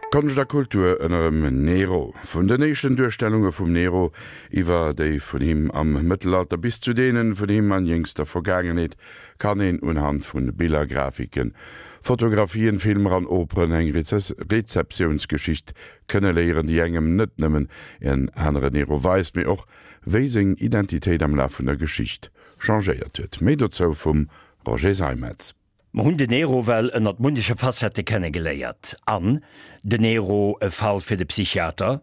Konscht a Kultur ënner dem Nero. Vun den éischten Duerstellunge vum Nero iwwer déi vun him am Mëttelalter bis zu deene vun him an jéngster Vergaangenheet kann een unhand vu Biller, Grafiken, Fotografien, Filmer an Operen eng Rezeptiounsgeschicht kënne léieren, déi engem net nëmmen en anere Nero weist, mee och wéi seng Identitéit am Laf vun der Geschicht changéiert huet. Méi dozou vum Roger Seimetz. Mer hunn den Nero well ënnert munneche Facettë kenne geléiert. An, Den Nero, e Fall fir de Psychiater?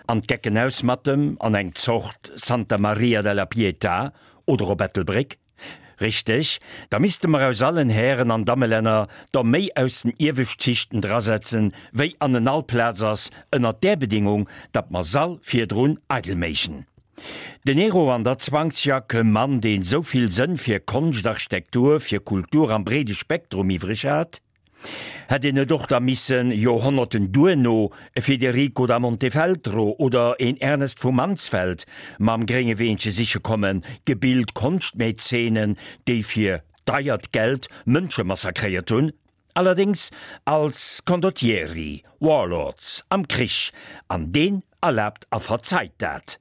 An d'Gecken aus mat em an eng Zort Santa Maria della Pietà oder op Ettelbréck? Richteg, da misste mer aus allen Hären an Dammelänner der méi aus den Iewescht Schichten drasetzen, wéi an en all Plaz ass, ënnert där Bedingung, datt mer s'all virdrun eidel méichen. Den Nero an der Zwangsjack, e Mann, deen esou vill Sënn fir Konscht, Architektur, fir Kultur am breede Spektrum iwwreg hat, hätt een net och da missen, Joerhonnerten duerno, e Federico da Montefeltro oder een Ernest vu Mansfeld mam grénge Weenche siche kommen, gebilt Konschtmäzenen, déi fir deiert Geld Mënsche massakréiert hunn, allerdéngs als Condottieri, Warlords am Krich, an deen erlaabt a verzeit dat.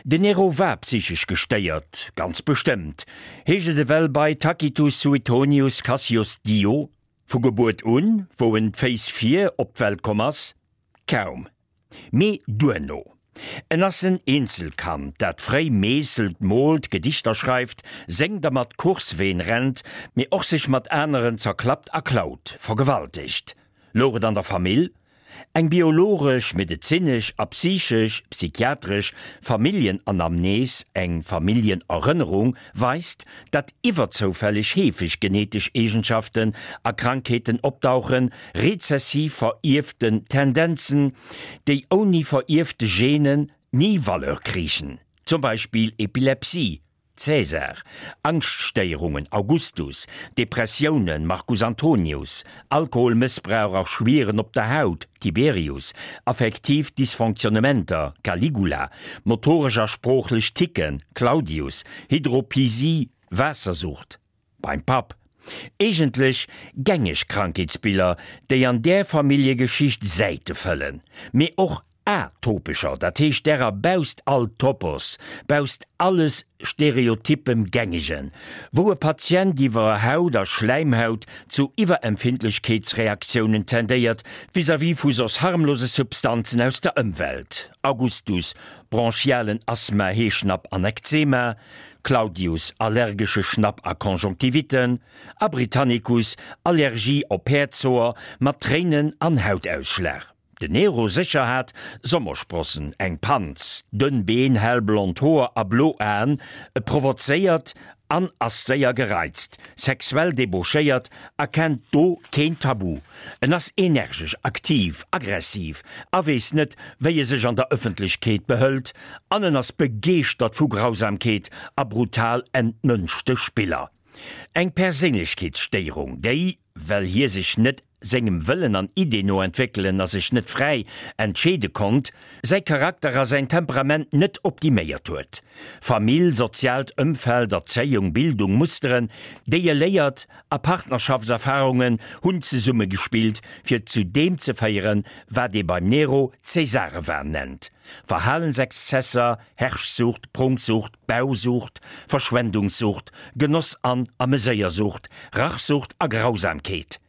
Den Nero war psychesch gestéiert, ganz bestëmmt, heescht et ewell bei Tacitus, Suetonius, Cassius Dio. Vu Gebuert un, wou en d'Féiss vir op d'Welt komm ass? Kaum. Mee duerno. En ass en Eenzelkand, dat fréi meesselt, moolt, Gedichter schreift, séngt a mat Courseween rennt, mee och sech mat aneren zerklappt a klaut, vergewaltegt. Louch et an der Famill? Eng biologesch, medezinesch a psychesch, psychiatresch, Familljenanamnes, eng Familljenerënnerung, weist, datt iwwerzoufälleg heefeg genetesch Eegenschaften a Krankheeten opdauchen, rezessiv verierften Tendenzen, déi ouni verierfte Genen ni Valeur kriichen, zum Beispill Epilepsie, Caesar, Angschtstéierungen, Augustus, Depressiounen, Marcus Antonius, Alkoholmëssbrauch a Schwieren op der Haut, Tiberius, affektiv Dysfonctionnementer, Caligula, motoresch a sproochlech Ticken, Claudius, Hydropisie, Waassersucht beim Papp. Eegentlech gängeg Krankheetsbiller, déi an där Familljegeschicht Säite fëllen, mee och atopescher, dat heescht därer bausst all Topos, bausst alles stereotypem Gängegen, wou e Patient iwwer Haut a Schläimhaut zu Iwwerempfindlechkeetsreaktiounen tendéiert vis-à-vis vu soss harmlose Substanzen aus der Ëmwelt, Augustus, bronchialen Asthma, Heeschnapp an Ekzema, Claudius, allergesche Schnapp a Conjonctivitten, a Britannicus, Allergie op Päerdshoer mat Tréinen an Hautausschlag. Den Nero sécher hat Sommersprossen, eng Panz, dënn Been, hellblond Hoer a blo Aen, e provozéiert an ass séier gereizt, sexuell debauchéiert a kennt do keen Tabu. En ass energesch, aktiv, aggressiv a weess net, wéi e sech an der Ëffentlechkeet behëlt an en ass begeeschtert vu Grausamkeet a brutal entmënschte Spiller. Eng Perséinlechkeetsstéierung, déi, well hie sech net sengem Wëllen an Ideen no entwéckelen a sech net fräi entscheede konnt, säi Charakter a säin Temperament net optiméiert huet. Famill, soziaalt Ëmfeld, Erzéiung, Bildung, Musteren, déi e léiert, a Partnerschaftserfarungen hunn zesummegespillt, fir zu deem ze féieren, wat ee beim Nero Cäsarewahn nennt, Verhalensexzesser, Herrschsucht, Prunksucht, Bausucht, Verschwendungssucht, Genoss an Ameséiersucht, Rachsucht a Grausamkeet.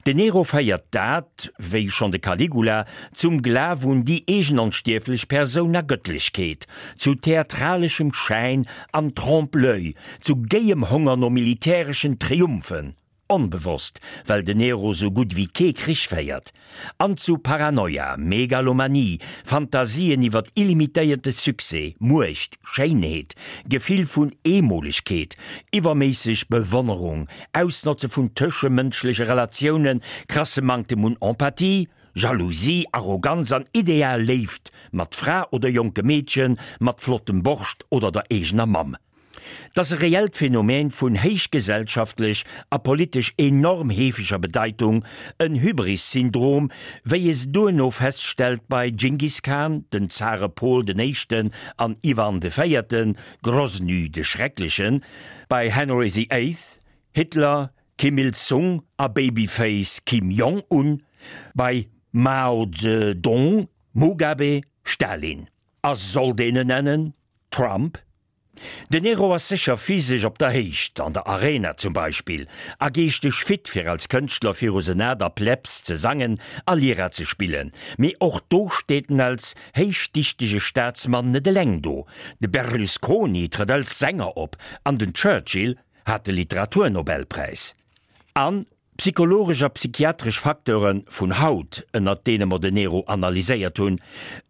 Den Nero féiert dat, wéi schonn de Caligula, zum Glaf un déi eegen onstierflech Persoun a Gëttlechkeet, zu theatraleschem Schäin an Trompe-l'oeil, zu géiem Honger no militäreschen Triumphen, Onbewosst, well den Nero sou gutt ewéi kee Krich féiert. An zu Paranoia, Megalomanie, Fantasien iwwert illimitéierte Succès, Muecht, Schéinheet, Gefill vun Eemolegkeet, iwwerméisseg Bewonnerung, Ausnotze vun tëschemënschleche Relatiounen, krasse Manktem un Empathie, Jalousie, Arroganz an ideal Léift mat Fra oder jonke Meedchen, mat flottem Borscht oder der eegener Mamm. 't ass e reellt Phänomen vun héichgesellschaftlech a politesch enorm heefeger Bedeitung, en Hybris-Syndrom, wéi ee se duerno feststellt bei Dschingis Khan, den Zare Pol den Éischten an Iwan de Véierten, Grosny de Schrecklechen, bei Henry the Eighth, Hitler, Kim Il Sung a Babyface Kim Jong Un, bei. Mao Zedong, Mugabe, Stalin. A sollt een en nennen? Trump? Den Nero ass sécher physesch op der Héicht, an der Arena zum Beispill, a geeschteg fit fir als Kënschtler viru Senat a Plebs ze sangen a Lyra ze spillen. Mee och do steet en als héichdichtege Staatsmann net eleng do. De Berlusconi trëtt als Sänger op an den Churchill hat de Literaturnobelpräis. An Psychologesch a psychiatresch Facteure vun haut, ënnert deene mer den Nero analyséiert hunn,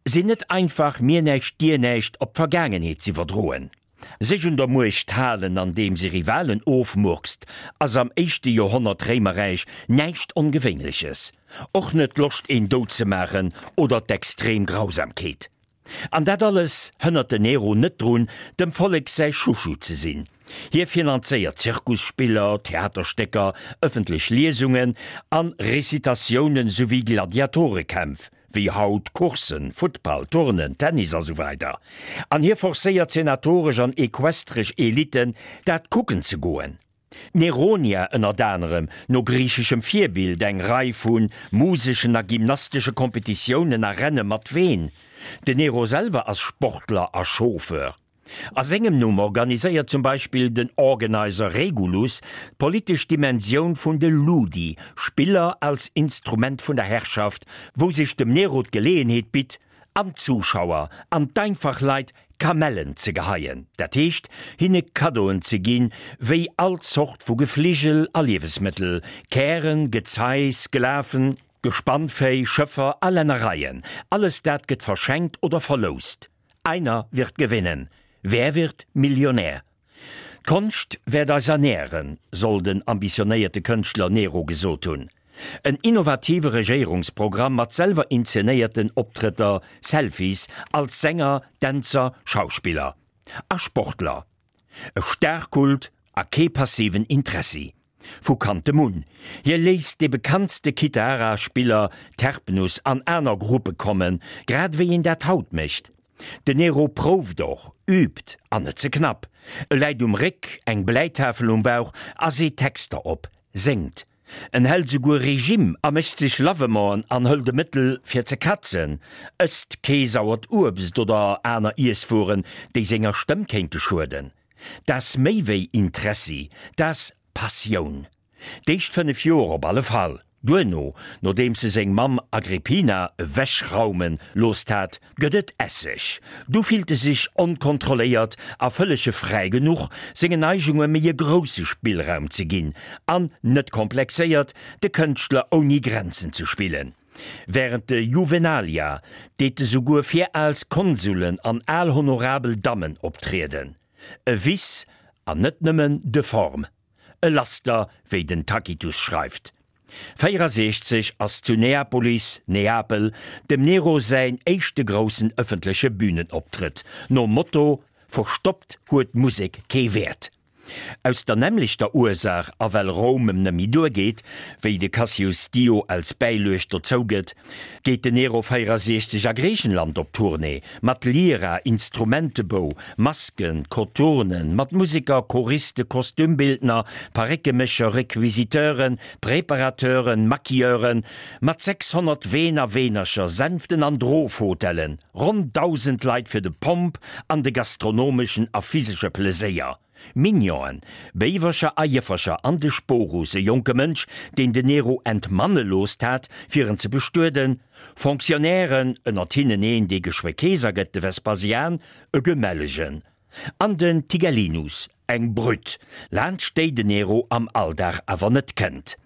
sinn net einfach mir näischt dir näischt op d'Vergaangenheet z'iwwerdroen. Sech un der Muecht halen andeems ee Rivalen ofmurkst, ass am éischte Joerhonnert Réimerräich näischt Ongewéinleches. Och net d'Loscht een dout ze maachen oder d'extrem Grausamkeet. An dat alles hënnert den Nero net drun, dem Vollek säi Chouchou ze sinn. Hie finanzéiert Zirkusspiller, Theaterstécker, ëffentlech Liesungen an Recitatiounen souwéi Gladiatorekämpf, wéi haut Courssen, Futtball, Turnen, Tennis a sou weider. An hie forcéiert senatoresch an equestresch Eliten, dat kucken ze goen. D'Neronia ënnert anerem, no griicheschem Virbild, eng Rei vu museschen a gymnastesche Kompetitiounen a Renne mat Ween. Den Nero selwer ass Sportler a Chauffeur. A sengem Numm organiséiert zum Beispill den Organizer Regulus d'politesch Dimensioun vun de Ludi, Spiller als Instrument vun der Herrschaft, wou sech dem Nero d'Geleeënheet bitt, an d'Zuschauer an d'einfach Leit Kamellen ze geheien, dat heescht hinne Kaddoen ze ginn, wéi all Zort vu Gefligel a Liewesmëttel, Kären, Gezei, Sklaven, Gespannvéi, Schëffer a Lännereien, alles dat gëtt verschenkt oder verloust. Einer wird gewinnen. Wer wird Millionär? D'Konscht wäert eis ernären, soll den ambitionéierte Kënschtler Nero gesot hunn. En innovative Regéierungsprogramm mat selwer inzenéierten Optrëtter, Selfies, als Sänger, Dänzer, Schauspiller a Sportler. E Starkult a kee passiven Interessi. Vu Kanntem un. Hie léisst dee bekanntste Kithara-Spiller Terpnus an aner Gruppe kommen, grad ewéi een dat haut mécht. Den Nero prouft och, übt, an net ze knapp. E läit um Réck, eng Bläitafel um Bauch a seet Texter op, séngt. En hält esouguer Regime a mécht sech Lavementen an hëlt e Mëttel fir ze katzen, ësst kee sauert Uebst oder aner Iesswueren, déi senger Stëmm kéinte schueden. T'ass méi wéi Interessi, t'ass Passioun. D'éischt 5 Joer op alle Fall. Duerno, nodeems e seng Mamm Agrippina ewechraume loosst hat, gëtt et Esseg. Du fillt e sech onkontrolléiert a vëllege fräi genuch, sengen Neigunge méi e grousse Spillraum ze ginn an, net komplexéiert, de Kënschtler ouni Grenzen ze spillen. Wärend de Juvenalia deet e souguer fir als Konsulen an al honorabel Dammen optrieden. E Vice, an net nëmmen de forme. E Laster, wéi den Tacitus schreift. 64 ass zu Neapolis, Neapel, dem Nero säin éischte groussen ëffentleche Bühnenoptrëtt, nom Motto Verstoppt huet d'Musek kee Wäert. Aus der nämmlechter Ursaach a well Roum em nëmmi duergeet, wéi de Cassius Dio als Bäiluecht dozou gëtt, geet den Nero 64 a Griichenland op Tournée, mat Lyra, Instrumentebou, Masken, Koturnen, mat Museker, Choriste, Kostümbildner, Paréckemécher, Requisiteuren, Preparateuren, Maquilleuren, mat 600 Ween a Weenercher, Sänften an Drofhotellen, ronn 1.000 Leit fir de Pomp an de gastronomeschen a physesche Pleséier, Mignonen, Béiwercher a Jëffercher an de Sporus, e jonke Mënsch, deen den Nero entmanne loosst hat, fir en ze bestueden, Fonctionnairen, ënnert hinnen een, dee geschwë Keeser gëtt, de Vespasian, e Gemellegen, an den Tigellinus, eng Brütt, laanscht déi den Nero am Alldag awer net kënnt.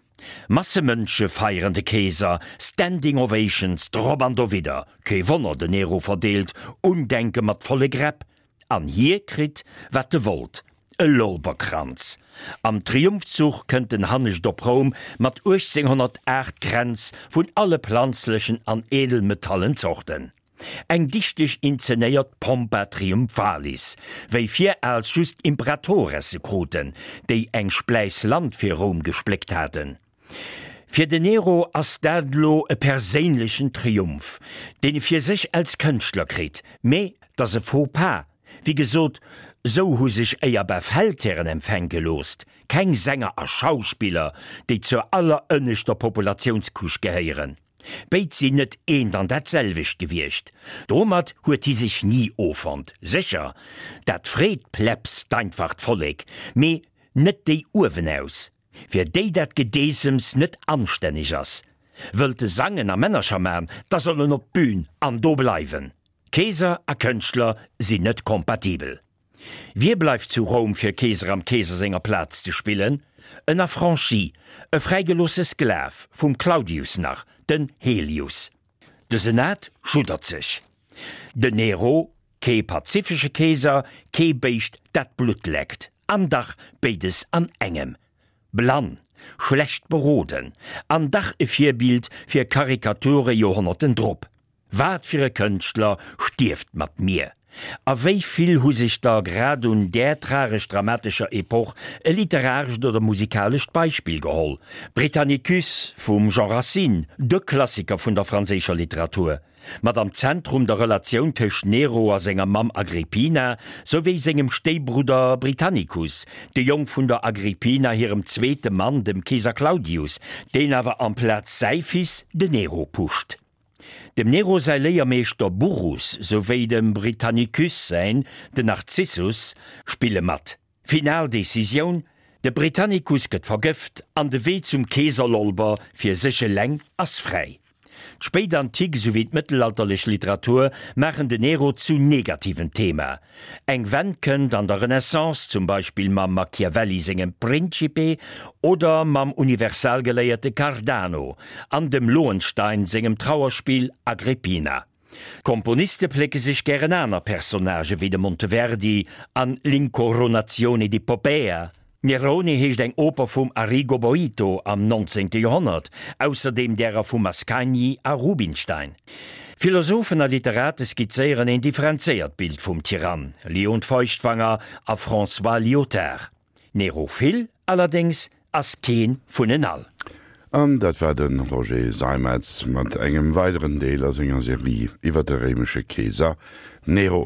Masse Mënsche feieren de Keeser, Standing Ovations drop an dowidder. Kee Wonner, den Nero verdeelt Undenke mat volle Gräpp. An hie kritt, wat e wollt, e Lorberkranz. Am Triumphzuch kënnt en hannescht op Roum mat 1808 Kränz vun alle planzlechen an edelmetallen Zorten. Eng dichteg inzenéiert Pompa Triumphalis, wéi viraals just Imperatores se kruten, déi eng Spläiss Land fir Roum gespléckt haten. Fir den Nero ass dat elo e perséinlechen Triumph, deen e fir sech als Kënschtler kritt, mee 't ass e Faux pas, wéi gesot, sou hu sech éierbar Feldhären empfänke loosst, keng Sänger a Schauspiller, déi zur allerënneschter Populatiounscouche gehéieren. Béid sinn net eent an dat selwecht gewiescht. Domat huet hi sech ni offonnt. Sécher, dat freet d'Plebs, d'einfacht Vollek, mee net déi uewenaus, fir déi dat Gedeessems net anstänneg ass. Wëllt e sangen a Männercher man, da soll en op d'Bün an do bleiwen. Keeser a Kënschtler sinn net kompatibel. Wie bleift zu Roum fir Keeser am Keeser senger Plaz ze spillen? En Affranchi, e fräigeloosse Sklav, vum Claudius nach, den Helius. De Senat schuddert sech. Den Nero, kee pazifesche Keeser, kee Béischt dat Blutt leckt, an dach béides an engem. Blann, schlecht beroden, an dach e Virbild fir Karikature Joerhonnerten drop. Wat fir e Kënschtler stierft mat mir? A wéi vill hu sech der grad un där tragesch-dramatescher Epoch e literarescht oder musikalescht Beispill geholl? Britannicus vum Jean Racine, de Klassiker vun der franséischer Literatur, mat am Zentrum der Relatioun tëscht Nero a senger Mamm Agrippina souwéi sengem Stéibrudder Britannicus, de Jong vun der Agrippina hirem zweete Mann, dem Keeser Claudius, deen awer amplaz säi Fils, de Nero, pusht. Dem Nero säi Léiermeeschter Burrus souwéi dem Britannicus säin, den Narzissus, spille mat. Final Decisioun, De Britannicus gëtt vergëft an de Wee zum Keeserlolber fir sech eleng ass fräi. D'Spéitantik souwéi d'mëttelalterlech Literatur maachen den Nero zu negativem Thema. Eng Wenn kënnt an der Renaissance, zum Beispill mam Machiavelli sengem Principe oder mam Universalgeléierte Cardano an dem Lohenstein sengem Trauerspill Agrippina. D'Komponiste plécke sech gären aner Personnagë wéi de Monteverdi an L'incoronazione di Poppea. Nerone heescht eng Oper vum Arrigo Boito am 19. Joerhonnert, ausserdeem därer vum Mascagni a Rubinstein. Philosophen a Literate skizzéieren een differenzéiert Bild vum Tyrann, Leon Feuchtwanger a François Lyotard. Nero Phil allerdéngs ass keen vun en all. An dat war de Roger Seimetz mat engem weideren Deel a senger Serie iwwer de réimesche Keeser Nero.